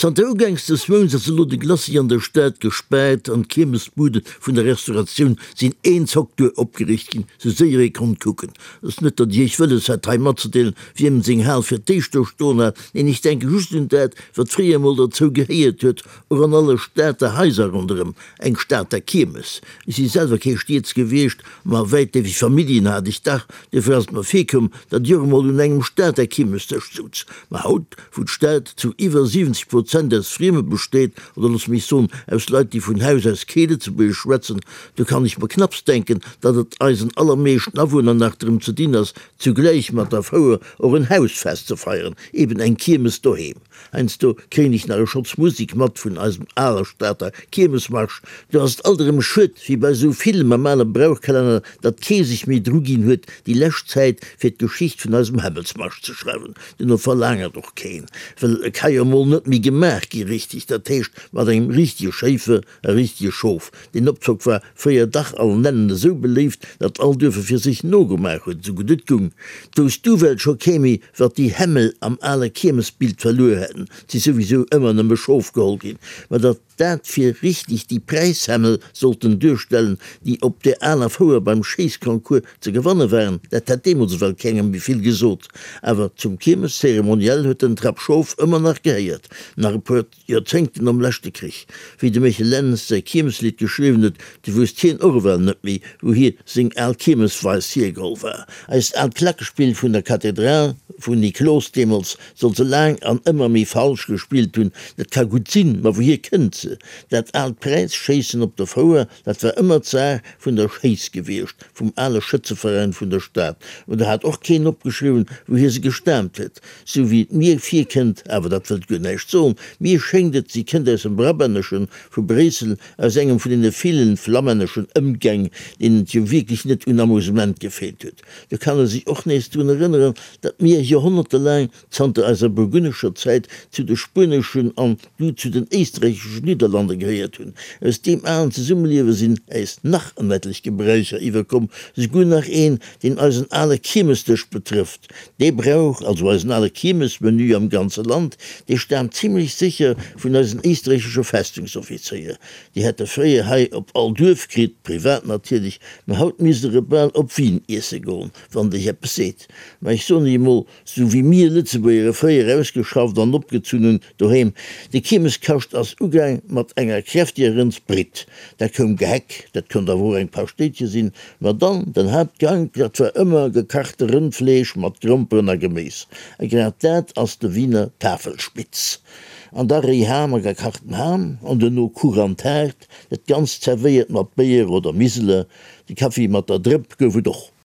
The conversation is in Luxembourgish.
Zanter ugaangs des Mounts ass elo de Glacis an der Stad gespaart an d'Kiermesbude vun der Restauratioun sinn een Zock duer opgeriicht ginn, sou séier ee konnt kucken. Et ass net, datt ech iech wëlles hätt hei matzedeelen, wiem seng Hal fir d'éischt do stoen hat, neen, ech denke just un dat, wat fréier emol derzou gehéiert huet, och an alle Stater Haiser ronderëm, eng Stater Kiermes. Ech si selwer kee Stieds gewiescht, ma wäitleefeg Familljen hat ech dach, duerfir ass et mer virkomm, datt ech och emol un engem Stater Kiermesdësch souz. Ma haut, wou d'Stad zu iwwer 70 Prozent aus Frieme besteet, oder looss mech soen, aus Leit, déi vun Haus aus kee Lëtzebuergesch schwätzen, do kann ech mer knapps denken, datt et eisen allermeeschten Awunner nach drëm ze dinn ass, zugläich mat der Fouer och en Hausfest ze feieren, eben eng Kiermes doheem. Heiansdo kréien ech nach e Schotz Musik mat vun eisem aler Stater Kiermesmarsch. Do ass et alt erëm schued, wéi bei esou villem am ale Brauchkalenner, datt kee sech méi dru ginn huet, déi lescht Zäit fir d'Geschicht vun eisem Hämmelsmarsch ze schreiwen. Duerno verlaangert och keen, well e ka jo emol net méi gemaach gi richteg, dat heescht mat engem richtege Schéifer a richtege Schof. Deen Opzock war fréier dach allen Nennen esou beléift, datt all Duerf e fir sech nogemaach huet, esou gutt et gung. D'wousst du well scho kee méi, wat déi Hämmel am ale Kiermesbild verluer hätten, 't si souwisou ëmmer nëmme Schof geholl ginn, ma datt dat fir richteg déi Präishämmel sollten duerstellen, déi op där aler Fouer beim Schéissconcours ze gewanne waren, dat hätt deemools ewell kengem méi vill gesot. Awer zum Kiermeszeremoniell huet den Trapp Schof ëmmer nach gehéiert, nach e puer. Joerzéngten nom leschte Krich. Wéi de Michel Lentz säi Kiermeslidd geschriwwen huet, du wousst hien och ewell net méi, wou hie seng al Kiermesweis hiergeholl war. Eist aalt Klackespill vun der Kathedral vun Niklos deemools soll se laang an ëmmer méi falsch gespillt hunn. Dat ka gutt sinn, ma wouhier kënnt se? Dat aalt Präisschéissen op der Fouer, dat war ëmmer d'Saach vun der Schéiss gewiescht, vum ale Schëtzeveräin vun der Stad. Mä do hat och keen opgeschriwwen, wouhier se gestaamt huet. Sou wéi et mir virkënnt, awer dat wëllt guer näischt soen, mir schéngt et, si kënnt aus dem Brabänneschen, vu Bréissel, aus engem vun deene villen flammänneschen Ëmgäng, deenen et jo wierklech net un Amusement gefeelt huet. Do kann e sech och nees drun erënneren, datt mir joerhonnertelaang, zanter eiser burgunnescher Zäit, zu de spueneschen an du zu den éisträicheschen Nidderlande gehéiert hunn. Aus deem alen Zesummeliewe sinn äis nach en etlech Gebräucher iwwerkomm, souguer nach een, deen eisen ale Kiermesdësch betrëfft. Dee Brauch, also eisen ale Kiermesmenü am ganze Land, dee staamt zimlech sécher vun eisen éisträichesche Festungsoffizéier. Déi hätte fréier hei op all Duerf kritt, privat natierlech, mä haut misst der e bal op Wien iesse goen, wann et iech eppes seet. Mä ech soen iech emol, Sou wéi mir Lëtzebuerger e fréier ausgeschafft an opgezunn hunn doheem. De Kiermeskascht ass ugaang mat enger kräftiger Rëndsbritt. Da koum Geheck, dat konnt awer och eng Paschtéitche sinn. Ma dann den Haaptgank, dat war ëmmer gekachte Rëndfleesch mat Gromperen a Geméis. A grad dat ass de Wiener Tafelspitz. An da réi Ham a gekachten Ham an duerno Kuch an Taart, dat Ganzt zerwéiert mat Béier oder Miseler. De Kaffi mat der Drëpp gouf et och.